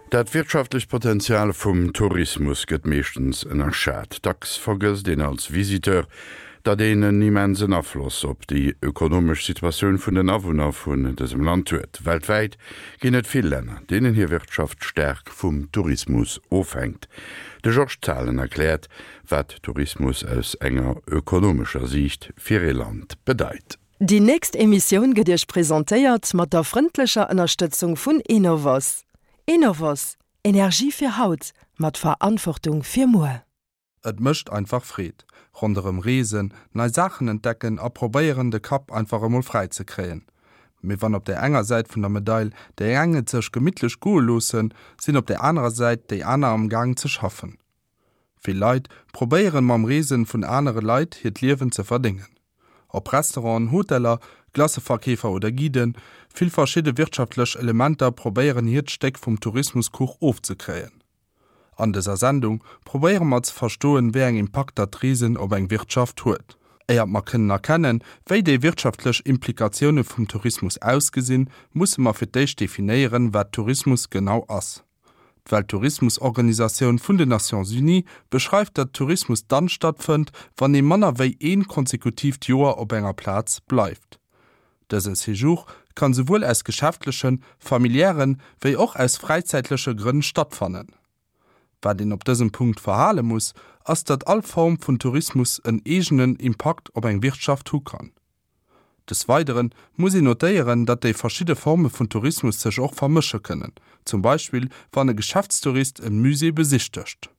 Dat wirtschaftlecht Potenzial vum Tourismus gëtt meeschtens ënnerschat. Dacks vergësst een als Visiteur, datt een en immensen Afloss op déi ökonomesch Situatioun vun den Awunner vun dësem Land huet. Weltwäit ginn et vill Länner, deenen hir Wirtschaft staark vum Tourismus ofhänkt. De Georges Zahlen erkläert, wat Tourismus aus enger ökonomescher Siicht fir ee Land bedeit. Déi nächst Emissioun gëtt Iech presentéiert mat der frëndlecher Ënnerstëtzung vun Enovos. Enovos, Energie fir haut, mat Verantwortung fir muer. Et mécht einfach Freed. Ronderëm reesen, nei Saachen entdecken a probéieren de Kapp einfach emol fräi ze kréien. Mee wann op där enger Säit vun der Medail déi eng et sech gemittlech goe loossen, sinn op där anerer Säit déi aner am Gaang ze schaffen. Vill Leit probéieren mam Reesen vun anere Leit hiert Liewen ze verdéngen. Ob Restauranten, Hoteller, Glacëverkeefer oder Guiden, vill verschidde wirtschaftlech Elementer probéieren hiert Stéck vum Tourismuskuch ofzekréien. An dëser Sendung probéiere mer ze verstoen wéi eng Impakter d'Reesen op eng Wirtschaft huet. Éiert mer kënnen erkennen wéi déi wirtschaftlech Implikatioune vum Tourismus ausgesinn, musse mer fir d'éischt definéieren wat Tourismus genau ass. D'Welttourismusorganisatioun vun den Nations Unies beschreift, datt Tourismus dann stattfënnt, wann ee manner wéi een konsekutiivt Joer op enger Plaz bleift. Dësen Séjour kann souwuel aus geschäftlechen, familiären, wéi och aus fräizäitleche Grënn stattfannen. Wat een op dësem Punkt verhale muss, ass datt all Form vun Tourismus en eegenen Impakt op eng Wirtschaft hu kann. Des Weidere muss een notéieren, datt déi verschidde Forme vun Tourismus sech och vermësche kënnen, zum Beispill wann e Geschäftstourist e Musée besichtegt.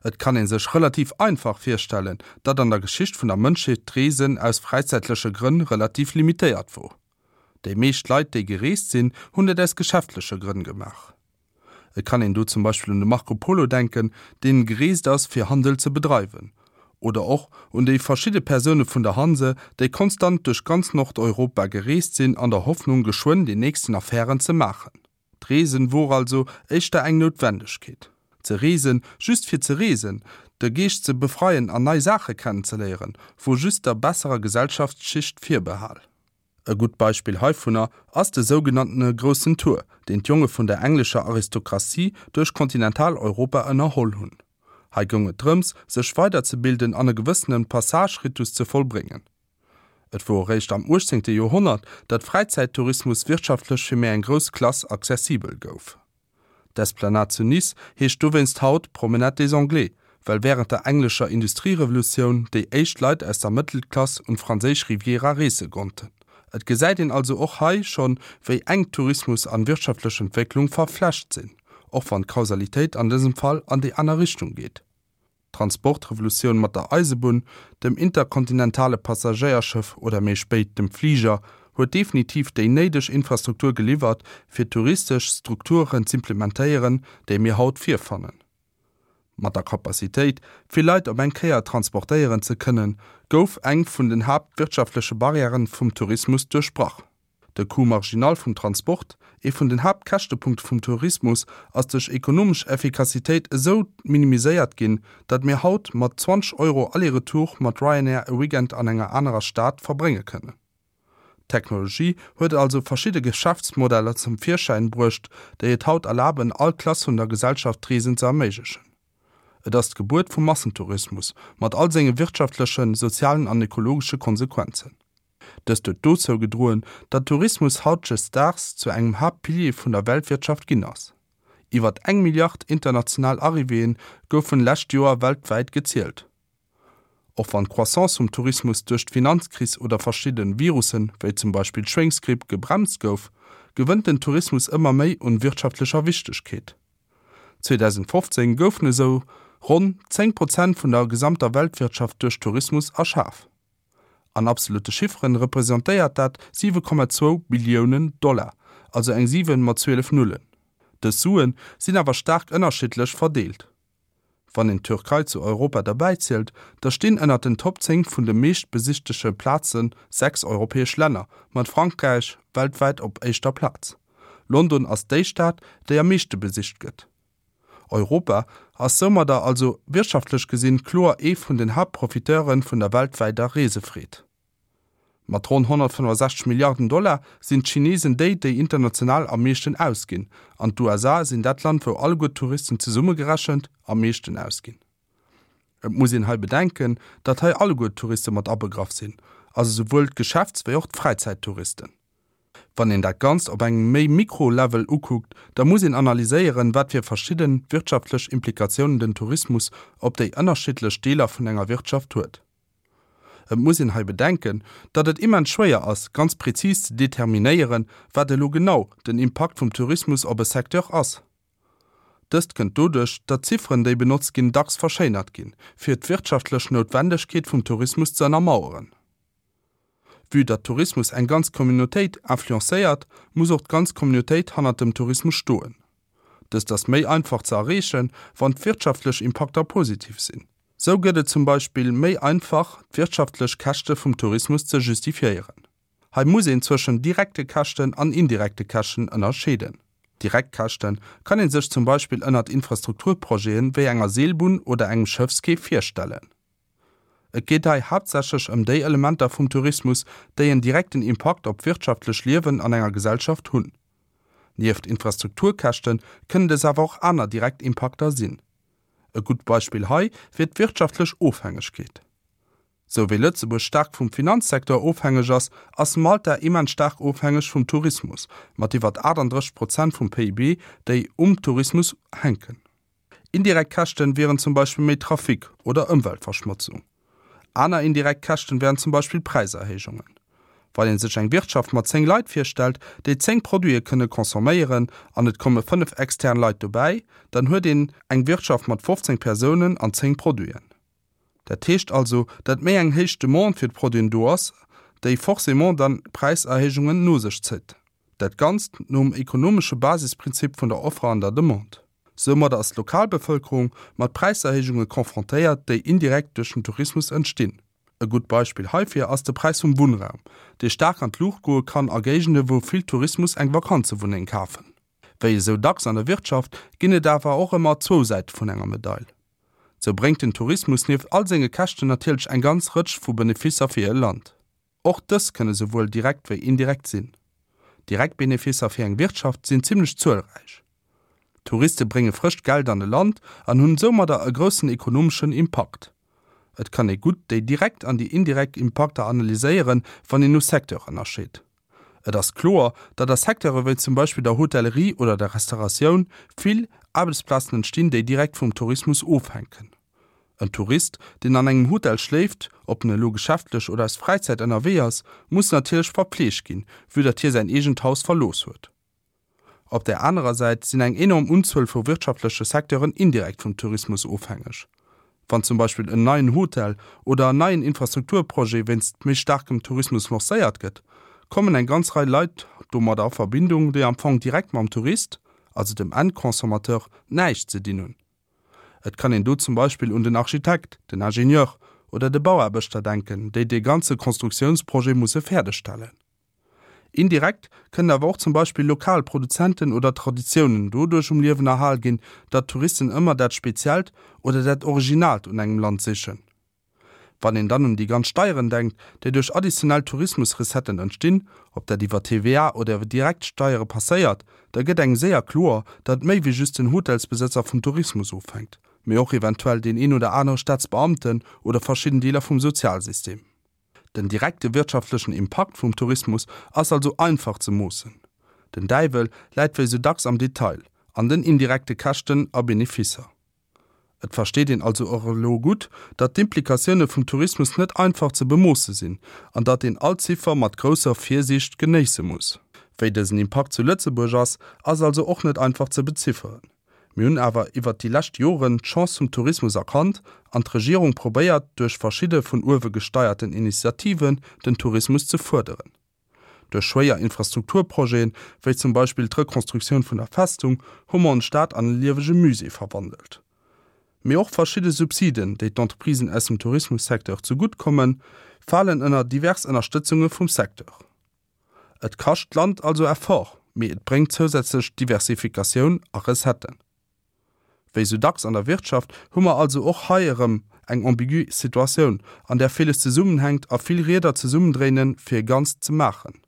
Et kann ee sech relativ einfach virstellen, datt an der Geschicht vun der Mënschheet d'Reesen aus fräizäitleche Grënn relativ limitéiert wor. Déi meescht Leit, déi gereest sinn, hunn dat aus geschäftleche Grënn gemaach. Et kann een do zum Beispill un de Marco Polo denken, deen gereest ass fir Handel ze bedreiwen. Oder och un déi verschidde Persoune vun der Hanse, déi konstant duerch ganz Nordeuropa gereest sinn an der Hoffnung geschwënn déi nächsten Affären ze maachen. D'Reesen wor also éischter eng Noutwendegkeet. Ze reesen, just fir ze reesen, de Geescht ze befreien an nei Saache kennenzeléieren, wor just der besserer Gesellschaftsschicht virbehal. E gutt Beispill heivunner ass de sougenanntene Groussen Tour, deen d'Jonge vun der englescher Aristokratie duerch Kontinentaleuropa ënnerholl hunn. Hei goung et drëms, sech weiderzebilden an e gewëssene Passage-Ritus ze vollbréngen. Et wor eréischt am 18. Joerhonnert, datt Fräizäittourismus wirtschaftlech fir méi eng grouss Klass accessibel gouf. D'Esplanade zu Nice heescht dowéinst haut Promenade des Anglais, well wärend der englescher Industrierevolutioun déi éischt Leit aus der Mëttelklass un d'franséisch Riviera reese konnten. Et gesäit een also och hei schonn, wéi enk Tourismus an wirtschaftlech Entwécklung verflecht sinn, och wann d'Kausalitéit an dësem Fall an déi aner Richtung geet. D'Transportrevolutioun mat der Eisebunn, dem interkontinentale Passagéierschëff oder méi spéit dem Fliger huet definitiv déi néideg Infrastruktur geliwwert, fir touristesch Strukturen z'implementéieren, déi mir haut virfannen. Mat der Capacitéit, vill Leit op eng Kéier transportéieren ze kënnen, gouf eng vun den haaptwirtschaftleche Barrièren vum Tourismus duerchbrach. De Coût marginal vum Transport, ee vun den Haaptkäschtepunkte vum Tourismus, ass duerch ekonomesch Effikassitéit esou minimiséiert ginn, datt mir haut mat 20 Euro aller-retour mat Ryanair e Weekend an enger anerer Stad verbrénge kënnen. D'Technologie huet also verschidde Geschäftsmodeller zum Virschäin bruecht, déi et haut erlaben, all Klass vun der Gesellschaft d'Reesen ze erméiglechen. Et ass d'Gebuert vum Massentourismus, mat all senge wirtschaftlechen, sozialen an ökologesche Konsequenzen. Dëst huet dozou gedroen, datt Tourismus hautdesdaags zu engem Haaptpilier vun der Weltwirtschaft ginn ass. Iwwert eng Milliard international Arrivéeë goufen lescht Joer weltwäit gezielt. Och wann d'Croissance vum Tourismus duerch d'Finanzkris oder verschidde Virussen, wéi zum Beispill d'Schwéngsgripp, gebremst gouf, gewënnt den Tourismus ëmmer méi un wirtschaftlecher Wichtegkeet. 2015 goufen esou ronn 10 Prozent vun der gesamter Weltwirtschaft duerch Tourismus erschaf. An absolutte Chifferen representéiert dat 7,2 Billiounen Dollar, also eng 7 mat 12 Nullen. Dës Sue sinn awer staark ënnerschiddlech verdeelt. Wann een d'Türkei zu Europa derbäizielt, da stinn ënnert den Top 10 vun de meeschtbesichtege Plaze 6 europäesch Länner, mat Frankräich weltwäit op éischter Plaz. London ass déi Stad, déi am meeschte besicht gëtt. Europa ass soumadder also wirtschaftlech gesinn kloer ee vun den Haaptprofiteure vun der weltwäiter Reesefreed. Mat ronn 165 Milliarden Dollar sinn d'Chinesen déi, déi international am meeschten ausginn, an d'USA sinn dat Land, wou alleguer d'Touristen zesummegerechent am meeschten ausginn. Et muss een hei bedenken, datt hei alleguer d'Touriste mat abegraff sinn, also souwuel d'Geschäfts wéi och d'Fräizäittouristen. Wann een dat Ganzt op engem méi Mikro-Level ukuckt, da muss een analyséieren, wat fir verschidde wirtschaftlech Implikatiounen den Tourismus op déi ënnerschiddlech Deeler vun enger Wirtschaft huet. Et muss een hei bedenken, datt et immens schwéier ass, ganz prezis ze determinéieren, wat elo genau den Impakt vum Tourismus op e Secteur ass. Dëst kënnt doduerch, datt d'Zifferen, déi benotzt ginn, dacks verschéinert ginn, fir d'wirtschaftlech Noutwendegkeet vum Tourismus ze ënnermaueren. Vue datt Tourismus eng ganz Communautéit influencéiert, muss och d'ganz Communautéit hannert dem Tourismus stoen. Dëst ass méi einfach ze erreechen, wann d'wirtschaftlech Impakter positiv sinn. Sou gëtt et zum Beispill méi einfach, d'wirtschaftlech Käschte vum Tourismus ze justifiéieren. Hei muss een zwëschen direkte Käschten an indirekte Käschten ënnerscheeden. Direkt Käschte kann ee sech zum Beispill ënnert Infrastrukturprojete wéi enger Seelbunn oder engem Schëffsquai virstellen. Et geet hei haaptsächlech ëm déi Elementer vum Tourismus, déi en direkten Impakt op d'wirtschaftlech Liewen an enger Gesellschaft hunn. Nieft Infrastrukturkäschte kënnen des awer och aner direkt Impakter sinn. E gutt Beispill hei wier d'wirtschaftlech Ofhängegkeet. Sou wéi Lëtzebuerg staark vum Finanzsecteur ofhängeg ass, ass Malta immens staark ofhängeg vum Tourismus, mat iwwert 38 Prozent vum PIB, déi um Tourismus hänken. Indirekt Käschten wieren zum Beispill méi Trafic oder Ëmweltverschmotzung. Aner indirekt Käschten wären zum Beispill Präiserhéijungen. Wann een sech eng Wirtschaft mat 10 Leit virstellt, déi 10 Produite kënne consomméieren an et komme 5 extern Leit dobäi, dann huet een eng Wirtschaft mat 15 Persounen an 10 Produiten. Dat heescht also, datt méi eng héich Demande fir d'Produiten do ass, déi forcément dann Präiserhéijungen no sech zitt. Dat Ganzt nom ekonomesche Basisprinzip vun der Offre an der Demande. Soumadder ass d'Lokalbevëlkerung mat Präiserhéijunge confrontéiert, déi indirekt duerch den Tourismus entstinn. E gutt Beispill heifir ass de Präis vum Wunnraum, dee staark an d'Luucht goe kann a Géigende wou vill Tourismus eng Vakanzewunneng kafen. Wéi esou dacks an der Wirtschaft ginn et awer och ëmmer zwou Säite vun enger Medail. Sou bréngt den Tourismus nieft all senge Käschten natierlech eng ganz Rëtsch vu Beneficer fir e Land. Och dës kënne souwuel direkt wéi indirekt sinn. Direkt Beneficer fir eng Wirtschaft sinn zimmlech zuelräich. Touriste brénge frëscht Geld an e Land an hunn soumadder e groussen ekonomeschen Impakt. Et kann ee gutt déi direkt an déi indirekt Impakter analyséieren, wann een no Secteur ënnerscheet. Et ass kloer, datt a Secteure wéi zum Beispill der Hotellerie oder der Restauratioun vill Aarbechtsplazen entstinn, déi direkt vum Tourismus ofhänken. En Tourist, deen an engem Hotel schléift, ob en elo geschäftlech oder aus Fräizäit ënnerwee ass, muss natierlech verpfleegt ginn, vue datt hie säin eegent Haus verlooss huet. Op där anerer Säit sinn eng enorm Unzuel vu wirtschaftleche Secteuren indirekt vum Tourismus ofhängeg. Wann zum Beispill en neien Hotel oder en neien Infrastrukturprojet wéinst méi staarkem Tourismus lancéiert gëtt, kommen eng ganz Rei Leit domadder a Verbindung, déi am Fong direkt mam Tourist, also dem Endconsommateur, näischt ze dinn hunn. Et kann een do zum Beispill un den Architekt, den Ingenieur oder de Bauaarbechter denken, déi dee ganze Konstruktiounsprojet musse fäerdegstellen. Indirekt kënnen awer och zum Beispill lokal Produzenten oder Traditiounen doduerch um Liewen erhal ginn, datt Touristen ëmmer dat Speziellt oder dat Originaalt un engem Land sichen. Wann een dann un déi ganz Steieren denkt, déi duerch additionell Tourismusrecetten entstinn, ob dat iwwer TVA oder iwwer direkt Steiere passéiert, da gëtt engem séier kloer, datt méi wéi just den Hotelsbesëtzer vum Tourismus ofhänkt, mee och eventuell deen een oder anere Staatsbeamten oder verschidden Deeler vum Sozialsystem. Den direkte wirtschaftlechen Impakt vum Tourismus ass also einfach ze moossen. Den Däiwel läit wéi sou dacks am Detail, an den indirekte Käschten a Beneficer. Et versteet een also och elo gutt, datt d'Implikatioune vum Tourismus net einfach ze bemoosse sinn an datt een all Ziffer mat grousser Virsiicht genéisse muss. Wéi dësen Impakt zu Lëtzebuerg ass, ass also och net einfach ze bezifferen. Mir hunn awer iwwert déi lescht Joren d'Chance vum Tourismus erkannt an d'Regierung probéiert duerch verschidde vun uewe gesteierten Initiativen den Tourismus ze fuerderen. Duerch schwéier Infrastrukturprojeten, wéi zum Beispill d'Rekonstruktioun vun der Festung, hu mer ons Stad an e liewege Musée verwandelt. Mee och verschidde Subsiden, déi d'Entreprisen aus dem Tourismussecteur zegutt kommen, falen ënner divers Ënnerstëtzunge vum Secteur. Et kascht d'Land also Effort, mee et bréngt zousätzlech Diversifikatioun a Recetten. Wéi sou dacks an der Wirtschaft hu mer also och hei erëm eng ambigu Situatioun, an där villes zesummenhänkt a vill Rieder zesummendréinen, fir e Ganzt ze maachen.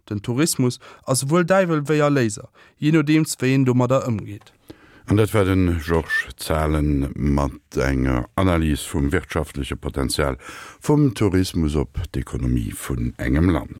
Den Tourismus ass souwuel Däiwel wéi Erléiser, jee nodeems wéi een domadder ëmgeet. An dat war de Georges Zahlen mat enger Analys vum wirtschaftleche Potenzial vum Tourismus op d'Ekonomie vun engem Land.